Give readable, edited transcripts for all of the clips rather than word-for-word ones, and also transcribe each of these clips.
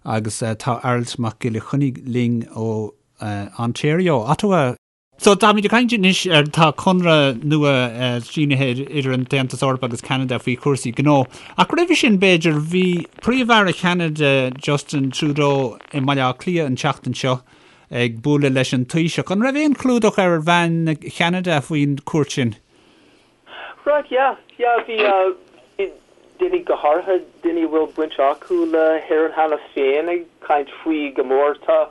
Agus tá Aralt Mac Giolla Chainnigh linn ó Ontario, Ottawa. So, táimid ag caint anois ar, tá conradh nua sínithe idir an tAontas Eorpach agus Ceanada faoi chúrsaí gnó. Ach roimhe sin, b'fhéidir, bhí Príomh-Aire Cheanada, Justin Trudeau, i mBaile Átha Cliath an tseachtain seo ag bualadh leis an Taoiseach. An raibh aon chlúdach ar mheáin Cheanada faoin chuairt sin? Right, yeah, yeah, bhí, bhí daoine, go háirithe daoine a bhfuil baint acu le hÉirinn cheana féin ag caint faoi go mór. Tá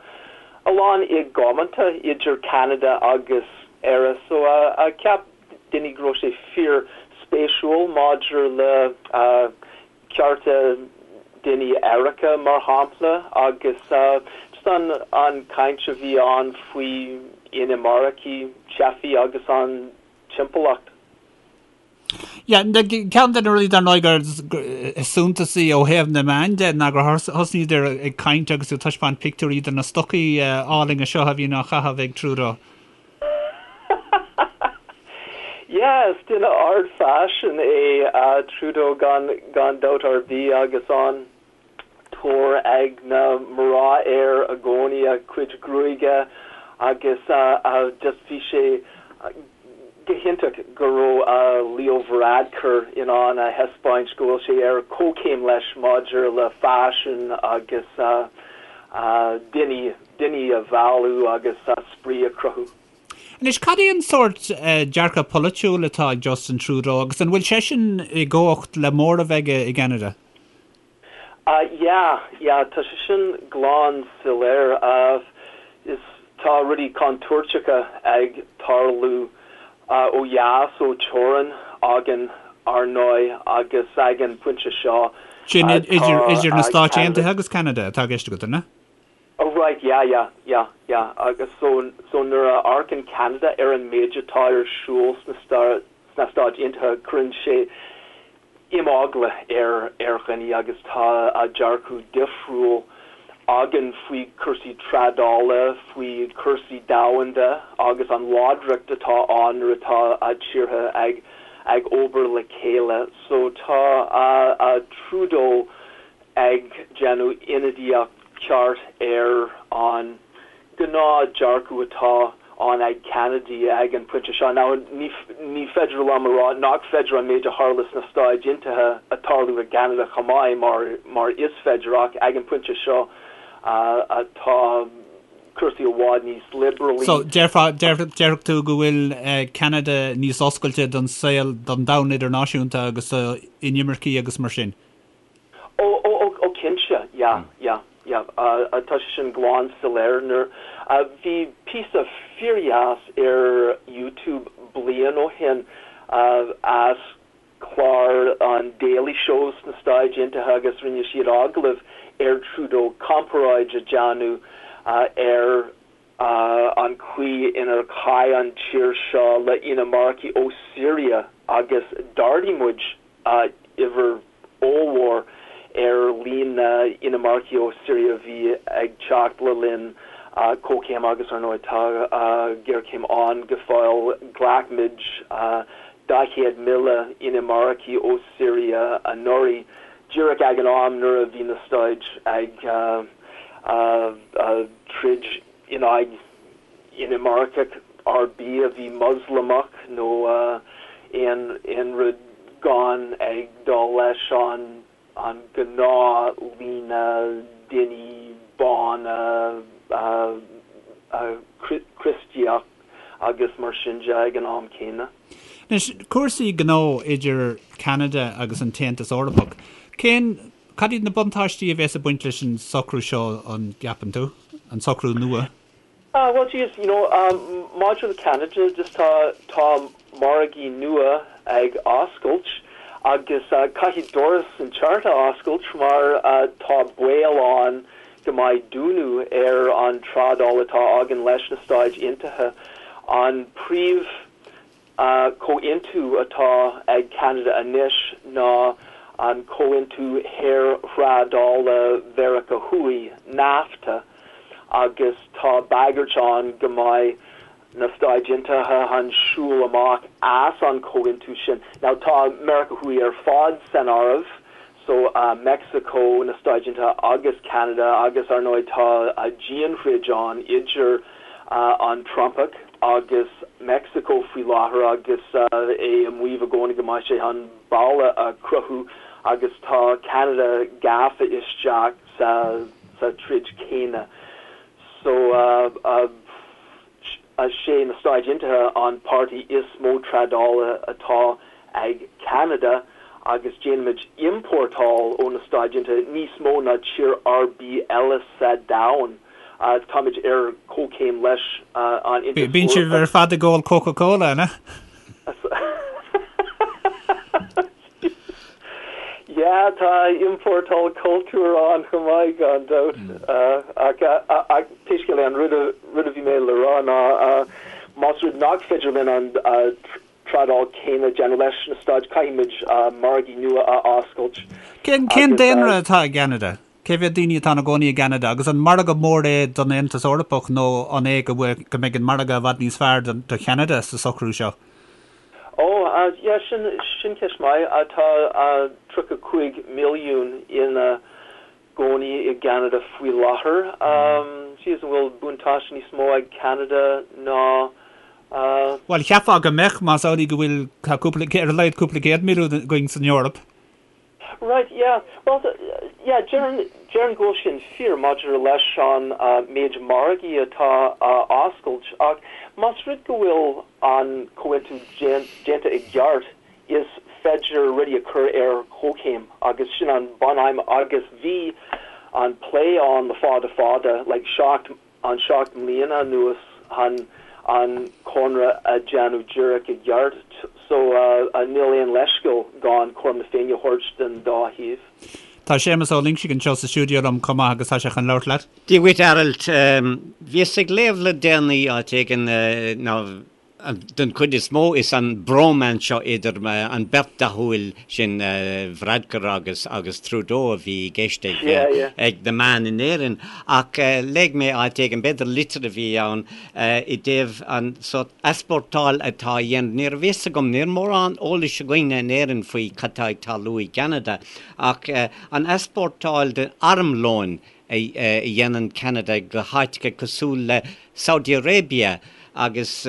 a lán i gcomónta idir Ceanada agus Éire so cheap daoine go raibh sé fíor spéisiúil maidir le cearta daoine aeracha mar shampla agus just an an caint a bhí ann faoi inimircigh, teifigh agus an timpeallacht. Yeah, ceann de na rudaí dar ndóigh gur is suntasaí ó thaobh na meán de ná gur thosnaíodar ag caint agus ag taispeáint pictiúirí de na stocaí álainne seo a bhíonn á chaitheamh ag Trudeau. Yeah, is duine ard-fhaisin é Trudeau gan gan dabht ar bith agus an tóir ag na mná air i gcónaí, a chuid gruaige agus just bhí sé go hiontach go raibh Leo Varadkar in ann a thaispeáint go bhfuil sé ar comhchéim leis maidir le faisean agus daoine, daoine a mhealladh agus spraoi a chruthú. Anois, cad é an sórt dearcadh polaitiúil atá ag Justin Trudeau agus an bhfuil seisean i gcumhacht le móramh aige i gCeanada? Yeah, yeah, tá sé sin glan soiléir. Is tá rudaí contúirteacha ag tarlú ó dheas ó teorainn againn, ar ndóigh, agus ag an bpointe seo Sin tá idir na Stáit Aontaithe agus Ceanada atá i gceist agat, an ea? Oh right, yeah, yeah, yeah, yeah, agus so, so nuair a amharcann Ceanada ar an méid atá ar siúl sna sna Stáit Aontaithe, cuireann sé imeagla ar ar dhaoine agus tá dearcadh difriúil againn faoi chúrsaí trádála, faoi chúrsaí domhanda agus an láidreacht atá ann nuair atá tíortha ag ag obair le chéile. So tá Trudeau ag déanamh ionadaíocht ceart ar an gnáth dearcadh atá ann ag Ceanadaigh ag an pointe seo. Now, ní ní féidir liom a rá nach féidir an méid a tharla sna Stáit Aontaithe a tarlú i gCeanada chomh maith, mar mar is féidir, ach ag an pointe seo tá cúrsaí i bhfad níos liobrálai. So, déarfá, déarfadh tú go bhfuil Ceanada níos oscailte don saol, don domhan idirnáisiúnta agus do inimircigh agus mar sin? Ó, ó, ó, ó cinnte, yeah, yeah, yeah, tá sé sin glan soiléir. Nuair, bhí píosa fíordheas ar YouTube bliain ó shin as clár an Daily Show sna Stáit Aontaithe agus rinne siad agallamh ar Trudeau, comparáid a déanamh ar an chaoi inar chaith an tír seo le inimircigh ó Syria agus d'ardaigh muid uimhir ollmhór ar líon na n-inimircigh ó Syria a bhí ag teacht le linn comhchéim agus ar ndóigh tá géarchéim ann go fóill. Ghlac muid 40,000 inimircigh ó Syria anuraidh, díreach ag an am nuair a bhí na Stáit ag troid in aghaidh inimirceach ar bith a bhí Moslamach nó aon rud gan ag dul leis an an gnáth-líne daoine bána Críostaíoch agus mar sin de ag an am céanna. Anois, cúrsaí gnó idir Ceanada agus an tAontas Eorpach, cén Cad iad na buntáistí a bheas ag baint leis an socrú seo, an gceapann tú? An socrú nua? Ah, well, geez, you know, maidir le Ceanada, just tá, tá margaí nua ag oscailt agus caithfidh doras inteacht a oscailt mar tá baol ann go mbeidh dúnadh ar an trádáil atá againn leis na Stáit Aontaithe. An príomh Comhaontú atá ag Ceanada anois ná an Comhaontú Shaorthrádála Mheiriceá Thuaidh, NAFTA, agus tá bagairt ann go mbeidh na Stáit Aontaithe chun siúl amach as an chomhaontú sin. Now tá Meiriceá Thuaidh ar fad san áireamh. So Mexico, na Stáit Aontaithe agus Ceanada agus ar ndóigh tá dianthroid ann idir an Trumpach agus Mexico faoi láthair agus é ag maíomh i gcónaí go mbeidh sé chun balla a chruthú agus tá Ceanada gafa isteach sa sa troid céanna. So sé na Stáit Aontaithe an páirtí is mó trádála atá ag Ceanada agus déanaimid iompórtáil ó na Stáit Aontaithe níos mó ná tír ar bith eile sa domhan. Táimid ar comhchéim leis an Aontas Bíonn sibh ar fad ag ól Coca-Cola, an ea? Yeah, tá iompórtáil cultúir ann chomh maith, gan dabht. Ach pé scéal é, an rud a bhí mé le rá ná más rud nach féidir linn an trádáil céanna a dhéanamh leis na Stáit, caithfimid margaí nua a oscailt. Cén daonra atá i gCeanada? Cé mhéad daoine atá ina gcónaí i gCeanada? Agus an margadh mór é don Aontas Eorpach nó an é go mbeidh an margadh i bhfad níos fearr do Cheanada sa socrú seo? Ó, yeah, sin, sin ceist maith. Tá 35 milliún ina gcónaí i gCeanada faoi láthair. Jeez, an bhfuil buntáiste níos mó ag Ceanada ná. Bhuel, cheapfá go mbeadh, más amhlaidh go bhfuil, tá cúpla, ar a laghad cúpla céad milliún againn san Eoraip. Right, yeah. Well, yeah, déarfainn, déarfainn go bhfuil sin fíor maidir leis an méid margaí atá á oscailt ach más rud go bhfuil an comhaontú déanta i gceart is féidir rudaí a chur ar comhchéim agus sin an bunaidhm agus bhí an plé ann le fada fada, like 7 an 7 mbliana anuas chun an conradh a dhéanamh díreach i gceart so níl aon leithscéal gan cothrom na Féinne a thabhairt don dá thaobh. Tá Séamus Ó Loingsigh anseo sa stiúideo liom chomh maith agus tá sé chun labhairt leat. Dia dhuit, a Arailt. Bhíos ag léamh le déanaí áit éigin ná Den chuid is mó, is an bromance seo idir an bheirt dathúil sin, Varadkar agus agus Trudeau, a bhí i gceist ag ag na meáin in Éirinn. Ach léigh mé áit éigin, b'fhéidir litir a bhí ann, i dtaobh an sórt easpórtáil atá á dhéanamh. Ní raibh fhios agam, níl mórán eolais againne in Éirinn faoi cad tá ag tarlú i gCeanada, ach an easpórtáil de armlóin a dhéanann Ceanada go háiteacha cosúil le Saudi Arabia agus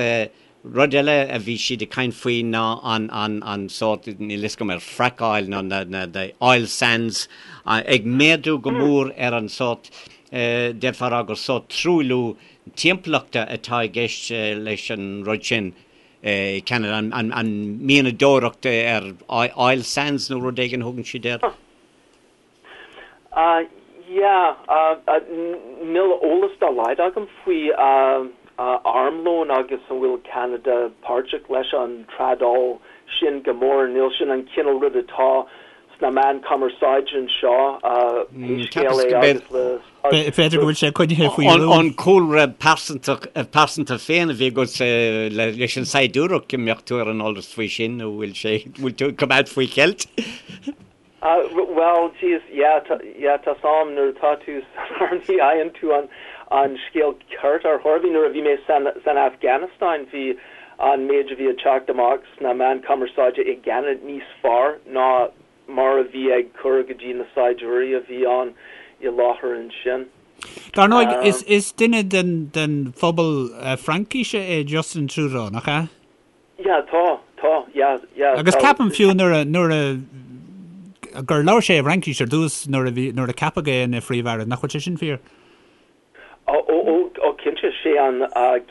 rud eile a bhí siad ag caint faoi ná an, an, an sórt, níl fhios agam ar fracáil nó na, na, the oil sands ag méadú go mór ar an sórt, d'fhéadfá a rá gur sórt truailliú timpeallachta atá i gceist leis an rud sin i Ceanada, an, an, an mianadóireacht ar oil sands nó rud éigin a thugann siad air. Yeah, níl eolas dá laghad agam faoi armlón agus an bhfuil Ceanada páirteach leis an trádáil sin go mór. Níl sin an cineál rud atá sna meáin cumarsáide anseo, pé scéal é agus le. B'fhéidir go bhfuil sé coinnithe faoi rún. An cúlra pearsanta féin a bhí agat leis an saighdiúireacht, go mbeadh tú ar an eolas faoi sin nó bhfuil sé, bhfuil tú ag coimeád faoi cheilt? Bhuel, jeez, yeah, yeah, tá's a'm, nuair atá tú san arm ní fhaigheann tú an, an scéal ceart ar chor ar bith. Nuair a bhí mé san, san Afghanistan bhí an méid a bhí ag teacht amach sna meáin cumarsáide i gCeanada níos fearr ná mar a bhí ag cur go dtí na saighdiúirí a bhí ann i láthair ansin. Dar ndóigh, is, is duine den, den phobal Fraincise é Justin Trudeau, nach ea? Yeah, tá, tá, yeah, yeah. Agus ceapaim fiú nuair a, nuair a, gur labhair sé i bhFraincis ar dtús nuair a bhí, nuair a ceapadh é ina Phríomh-Aire, nach bhfuil sé sin fíor? Ó, ó, ó, ó cinnte, sé an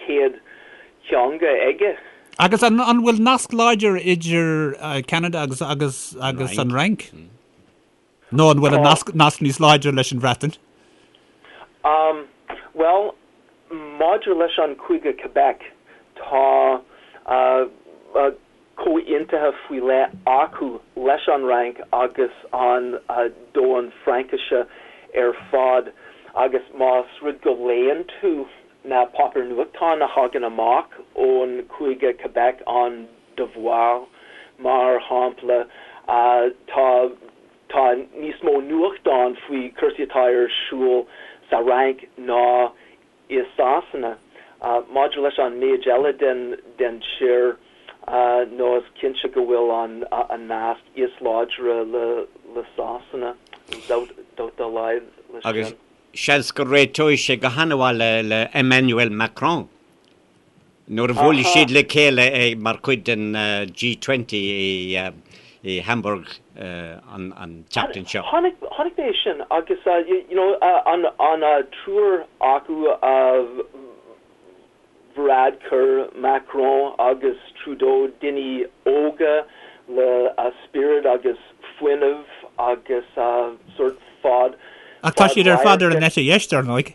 chéad teanga aige. Agus an, an bhfuil nasc láidir idir Ceanada agus, agus, agus an Fhrainc? Nó an bhfuil an nasc, nasc níos láidre leis an Bhreatain? Um, bhuel, maidir leis an Cúige Quebec, tá uh, uh, comhaontuithe faoi leith acu leis an Fhrainc agus an uh, domhan Fraincise ar fad agus más rud go léann tú na páipéir nuachtáin a thagann amach ón Cúige Quebec, an Devoir, mar shampla, tá tá níos mó nuachtán faoi cúrsaí atá ar siúl sa Fhrainc ná i Sasana. Maidir leis an méid eile den den tír, nó is cinnte go bhfuil an an nasc is láidre le. le Sasana, níl dabht dá laghad leis sin. Agus seans go réiteoidh sé go han-mhaith le Emmanuel Macron nuair a bhuailfidh siad le chéile mar chuid den G20 i Hamburg an tseachtain seo. Chonaic mé sin agus you know an triúr acu Varadkar, Macron agus Trudeau, daoine óga le spiorad agus fuinneamh agus sórt fad Ach tá siad ar fad ar an eite dheis, dar ndóigh.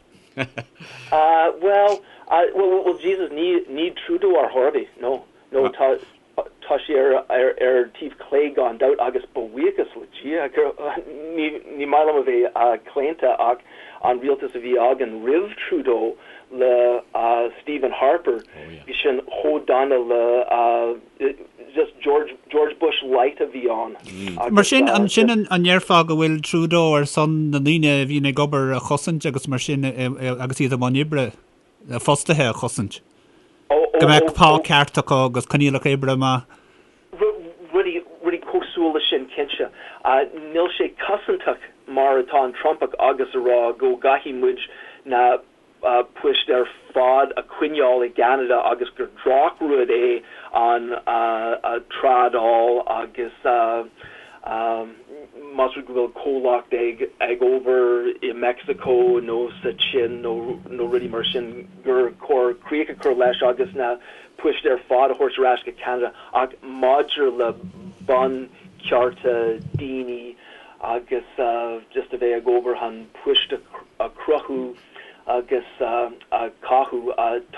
Bhuel, bhuel, Jesus, ní Trudeau ar chor ar bith, no, no, tá, Tá sé ar taobh clé gan dabht agus buíochas le Dia gur, ní maith liom a bheith claonta ach an rialtas a bhí againn roimh Trudeau le Stephen Harper, bhí sin chomh dona le just George, George Bush light a bhí ann. Mar sin, ansin an ndéarfá go bhfuil Trudeau ar son na ndaoine a bhíonn ag obair a chosaint agus mar sin agus iad i mbun oibre? fostaithe a chosaint, go mbeadh pá ceart acu agus coinníollacha oibre maith. Rudaí, rudaí cosúil leis sin, cinnte. Níl sé cosantach mar atá an Trumpach agus a rá go gcaithfidh muid na poist ar fad a choinneáil i gCeanada agus gur drochrud é an trádáil agus Más rud go bhfuil comhlacht ag obair i Meicsiceo nó sa tSín nó rudaí mar sin gur chóir críoch a chur leis agus na poist ar fad a thabhairt ar ais go Ceanada ach maidir le bunchearta daoine agus just a bheith ag obair chun poist a chruthú agus a chothú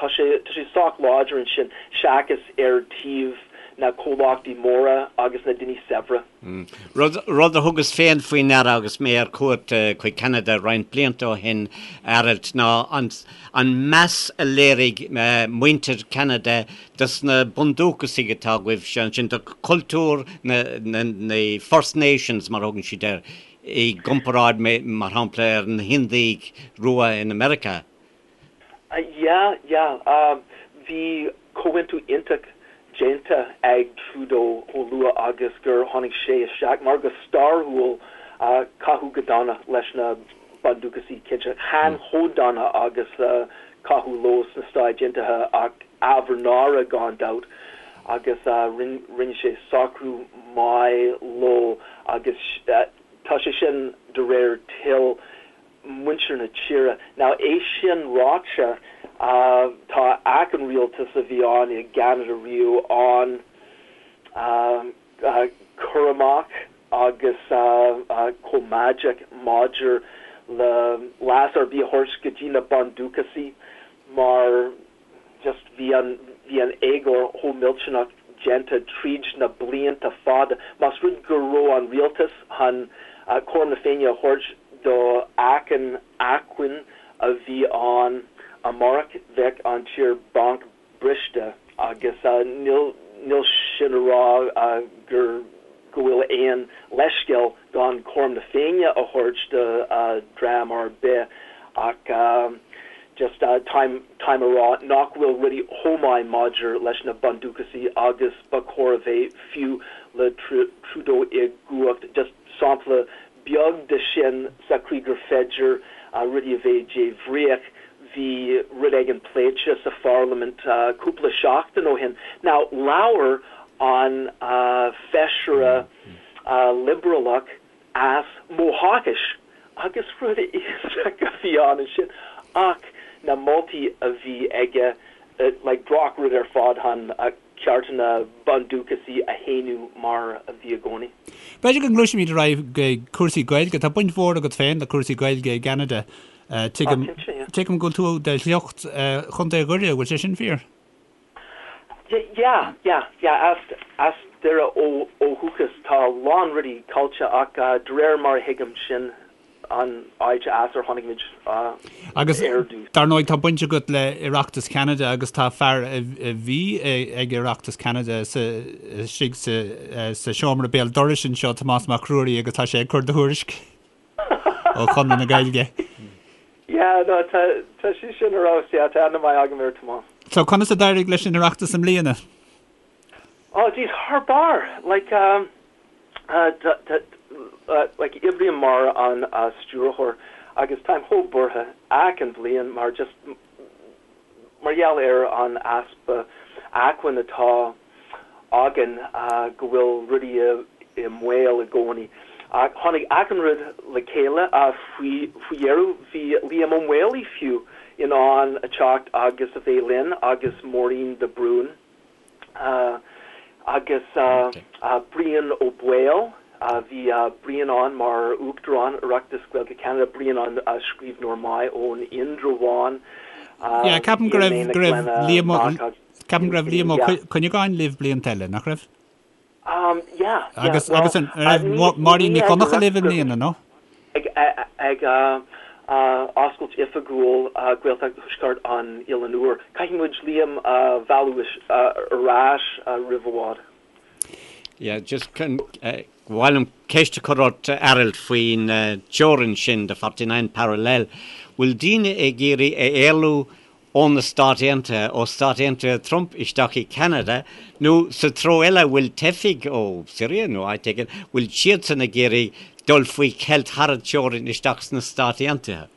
tá sé tá sé sách láidir ansin seachas ar taobh na comhlachtaí móra agus na daoine saibhre. Rud rud a thugas féin faoi ndeara agus mé ar cuairt chuig Ceanada roinnt blianta ó shin, Aralt, ná an an meas a léirigh muintir Cheanada dos na bundúchasaigh atá agaibhse ansin, do chultúr na na na First Nations mar a thugann siad air. i gcomparáid, mar shampla, ar na hIndiaigh rua in America. Yeah, yeah. Bhí comhaontú iontach déanta ag Trudeau chomh luath agus gur tháinig sé isteach, mar go stairiúil caitheadh go dona leis na Bundúchasaigh, cinnte. Chan chomh dona agus caitheadh leo sna Stáit Aontaithe ach ábhar náire gan dabht agus rinne sé socrú maith leo agus tá sé sin de réir toil muintir na tíre. Now é sin ráite tá achan rialtas a bhí ann i gCeanada riamh an-chúramach agus coimeádach maidir le leas ar bith a thabhairt go dtí na Bundúchasaigh mar just bhí an bhí an éagóir chomh millteanach déanta tríd na blianta fada. Más rud go raibh an rialtas chun cothrom na Féinne a thabhairt do achan acmhainn a bhí ann amárach bheadh an tír banc briste agus níl níl sin a rá gur go bhfuil aon leithscéal gan cothrom na Féinne a thabhairt do dhream ar bith ach just táim táim a rá nach bhfuil rudaí chomh maith maidir leis na Bundúchasaigh agus ba chóir a bheith fiú le Trudeau i gcumhacht just sampla beag de sin sa chaoi gur féidir rudaí a bheith débhríoch bhí rud éigin pléite sa pharlaimint cúpla seachtain ó shin. Now labhair an feisire liobrálach as Mohawkis agus rud iontach a bhí ann ansin ach na moltaí a bhí aige like drochrud ar fad chun cearta na Bundúchasaigh a shéanadh mar a bhí i gcónaí. B'fhéidir go ngluaisfimid ar aghaidh go cúrsaí Gaeilge. Tá baint mhór agat féin le cúrsaí Gaeilge i gCeanada. Tuigim tuigim go bhfuil tú de shliocht Chontae Dhoire, bhfuil sé sin fíor? Yeah, yeah, yeah, as as Doire ó ó dhúchas. Tá a lán rudaí caillte ach de réir mar a thuigim sin an áit as ar tháinig muid ar dtús. Agus dar ndóigh tá baint agat le Oireachtas Cheanada agus tá fear a bhí ag Oireachtas Cheanada istigh sa seomra béal dorais anseo, Tomás Mac Ruairí, agus tá sé ag cur do thuairisc ó Chonradh na Gaeilge. Yeah, no, tá tá sé sin ar fheabhas, yeah, tá aithne maith agam ar Tomás. So conas a d'éirigh leis an Oireachtas i mbliana? Oh, jeez, thar barr! Like, um, tá, tá, like oibrím mar an stiúrthóir agus táim chomh buartha achan bhliain mar just mar gheall ar an easpa acmhainn atá againn go bhfuil rudaí i mbaol i gcónaí. Ach tháinig achan rud le chéile faoi dheireadh. Bhí Liam Ó Maolaodha fiú in ann a teacht agus a bheith linn agus Máirín de Brún agus Brian Ó Baoill. Bhí Brian ann mar Uachtarán Oireachtas Gaeilge Cheanada, Brian an scríbhneoir maith ón Indreabhán. Yeah, ceapaim go raibh go raibh Liam Ó ceapaim go raibh Liam Ó Cuinneagáin libh blianta eile, nach raibh? Um, yeah, yeah. Agus agus an raibh Máirín Nic Dhonncha libh i mbliana, nó? Ag ag oscailt oifigiúil Gaeltacht Thuaisceart an Oileáin Úir. Caithfidh muid Liam a mhealladh ar ais roimh i bhfad. Yeah, just ba mhaith liom ceist a chur ort, Aralt, faoin teorainn sin, the 49 parallel. Bhfuil daoine ag iarraidh a éalú ó na Stáit Aontaithe, ó Stáit Aontaithe Trump isteach i Ceanada, nó sa treo eile, bhfuil teifigh ó Syria nó áit éigin, bhfuil siadsan ag iarraidh dul faoi cheilt thar an teorainn isteach sna Stáit Aontaithe?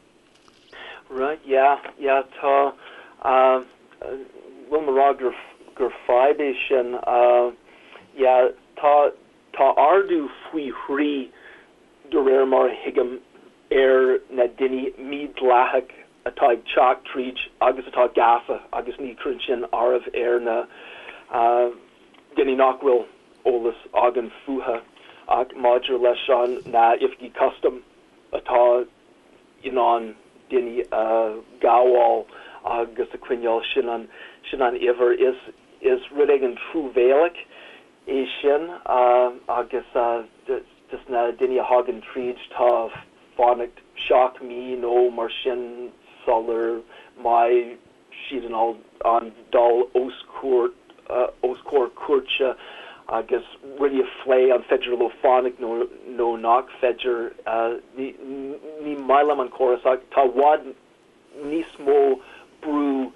Right, yeah, yeah, tá, bhfuil mé a rá gur, gur fadhb é sin, yeah, tá, tá ardú faoi thrí de réir mar a thuigim ar na daoine mídhleathach atá ag teacht tríd agus atá gafa agus ní chuireann sin áireamh ar na daoine nach bhfuil eolas againn fúthu ach maidir leis an na oifigí custaim atá in ann daoine a ghabháil agus a choinneáil sin an sin an uimhir is is rud éigin truamhéalach é sin agus just na daoine a thagann tríd tá fanacht 7 mí nó mar sin sular mbeidh siad in ann dul os os comhair cúirte agus rudaí a phlé an féidir leo fanacht nó nó nach féidir. Ní ní maith liom an córas ach tá i bhfad níos mó brú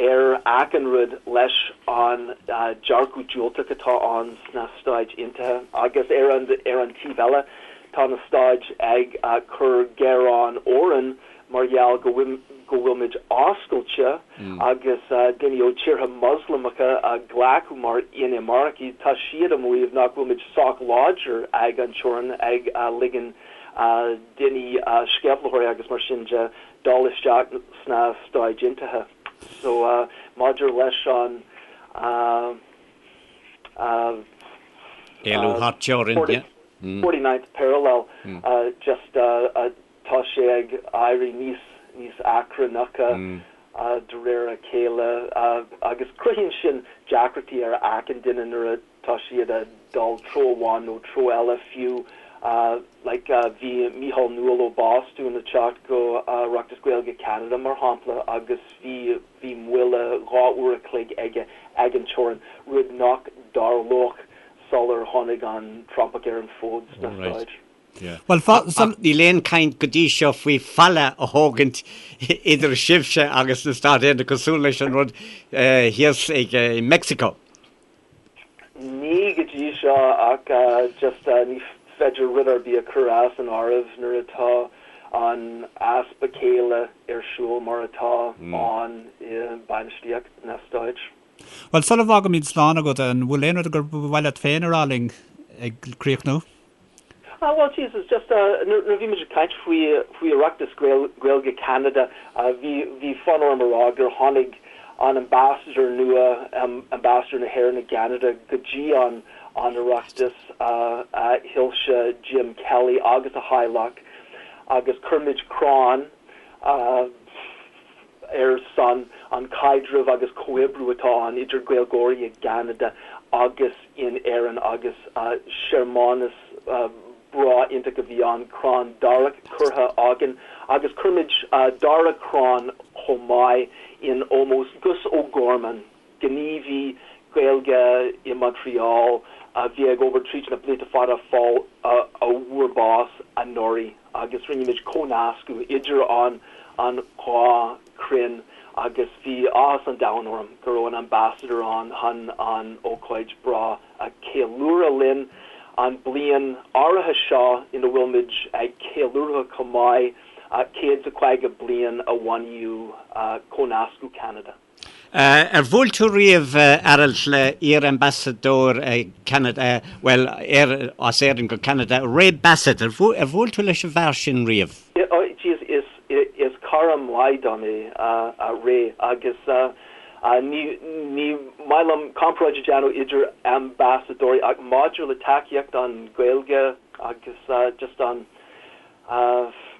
ar achan rud leis an dearcadh diúltach atá ann sna Stáit Aontaithe agus ar an ar an taobh eile tá na Stáit ag cur géarán orainn mar gheall go bhfuil go bhfuilmid oscailte agus daoine ó tíortha Moslamacha a ghlacadh mar inimircigh tá siad ag maíomh nach bhfuilmid sách láidir ag an teorainn ag ligean daoine sceimhlitheoirí agus mar sin de dul isteach sna Stáit Aontaithe. So maidir leis an Éalú thar teorainn, yeah. 49th parallel, just tá sé ag éirí níos níos achrannacha de réir a chéile agus cruthaíonn sin deacrachtaí ar achan duine nuair a tá siad ag dul treo amháin nó treo eile fiú like bhí Mícheál Newell ó Bhostún ag teacht go Oireachtas Gaeilge Cheanada mar shampla agus bhí bhí moille 2 uair a chloig aige ag an teorainn, rud nach dtarlódh sular tháinig an Trumpach ar an bhfód sna Stáit. Bhuel, Ach níl aon chaint go dtí seo faoi falla a thógaint idir sibhse agus na Stáit Aontaithe cosúil leis an rud thíos ag Meicsiceo. Ní go dtí seo ach just ní féidir rud ar bith a chur as an áireamh nuair atá an easpa céille ar siúl mar atá ann i bainistíocht na Stáit. Bhuel, sula bhfágaimid slán agat, an bhfuil aon rud gur mhaith leat féin a rá linn ag críochnú? Ah well Jesus just nuair a bhí muid ag caint faoi faoi Oireachtas Gaeilge Cheanada bhí bhí fonn orm a rá gur tháinig an ambassador nua ambassador na hÉireann i gCeanada go dtí an an Oireachtas a Shoilse Jim Kelly agus a theaghlach agus chuir muid crann ar son an caidrimh agus comhoibriú atá ann idir Gaeilgeoirí i gCeanada agus in Éirinn agus searmanas breá iontach a bhí ann, crann darach curtha againn agus chuir muid dara crann chomh maith in ómós Gus O'Gorman, gníomhaí Gaeilge i Montreal a bhí ag obair tríd na blianta fada fáil a fuair bás anuraidh agus rinne muid comhnascadh idir an an dhá chrann agus bhí áthas an domhain orm go raibh an ambassador ann chun an ócáid breá a cheiliúradh linn. An bliain áirithe seo ina bhfuil muid ag ceiliúradh chomh maith 150 bliain a bunaíodh Cónascadh Cheanada. Ar bhuail tú riamh, Aralt, le iar-ambasadóir Cheanada, bhuel, as Éirinn go Ceanada, Ray Bassett, ar bhuail tú leis an bhfear sin riamh? Jeez, is cara maith dom é Ray agus ní maith liom comparáid a dhéanamh idir ambasadóirí ach maidir le tacaíocht don Ghaeilge agus just an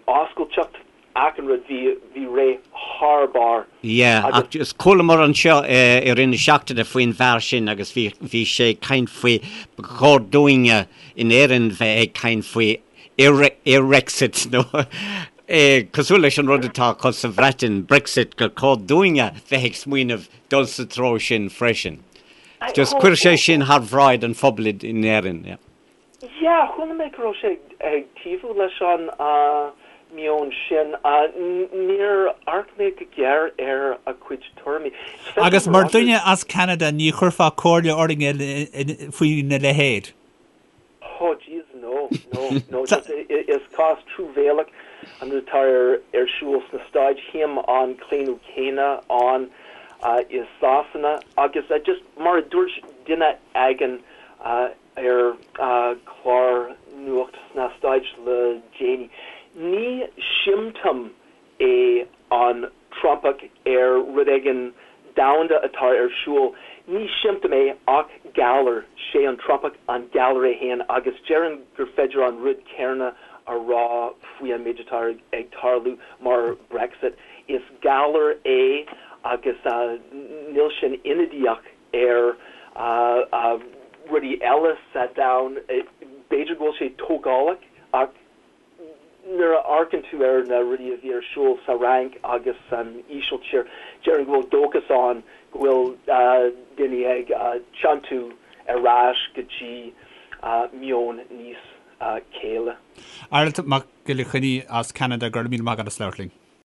oscailteacht achan rud, bhí Ray thar barr. Yeah, ach just chualamar anseo i rith na seachtaine faoin bhfear sin agus bhí bhí sé ag caint faoi ba chóir dúinne in Éirinn bheith ag caint faoi Irexit nó cosúil leis an rud atá acu sa Bhreatain, Brexit, gur chóir dúinne bheith ag smaoineamh dul sa treo sin freisin. Just chuir sé sin thar bhráid an phobail in Éirinn. Yeah. Yeah, chuala mé go raibh sé ag taobhú leis an meon sin. Níor amharc mé go géar ar a chuid tuairimí. Agus mar dhuine as Ceanada ní chuirfeá comhairle orainn faoina leithéid? Oh jeez, no, no, no, just is cás truamhéalach an rud atá ar siúl sna Stáit, tchím an claonadh céanna ann i Sasana agus just mar a dúirt duine éigin ar chlár nuacht sna Stáit le déanaí, ní siomptóm é an Trumpach ar rud éigin domhanda atá ar siúl. Ní siomptóm é ach galar. Sé an Trumpach an galar é féin agus déarfainn gur féidir an rud céanna a rá faoi an méid atá ag tarlú mar Brexit. Is galar é agus níl sin ionadaíoch ar rudaí eile sa domhan. B'fhéidir go bhfuil sé tógálach ach Nuair a amharcann tú ar na rudaí a bhí ar siúl sa Fhrainc agus san Ísiltír, déarfainn go bhfuil dóchas ann go bhfuil daoine ag tiontú ar ais go dtí meon níos céille. Aralt Mac Giolla Chainnigh as Ceanada, go raibh míle maith agat as labhairt linn.